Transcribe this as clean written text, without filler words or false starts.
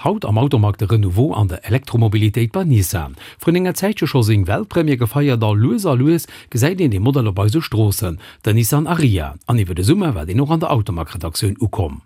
Haut am Automag de Renouveau an der Elektromobilitéit bei Nissan. Vrun enger Zäitche scho seng Weltpremière gefeiert a lues a lues gesäit een dee Modell op eise Stroossen, den Nissan Ariya. An iwwer de Summer war deen och an der Automag-Redaktioun ukomm.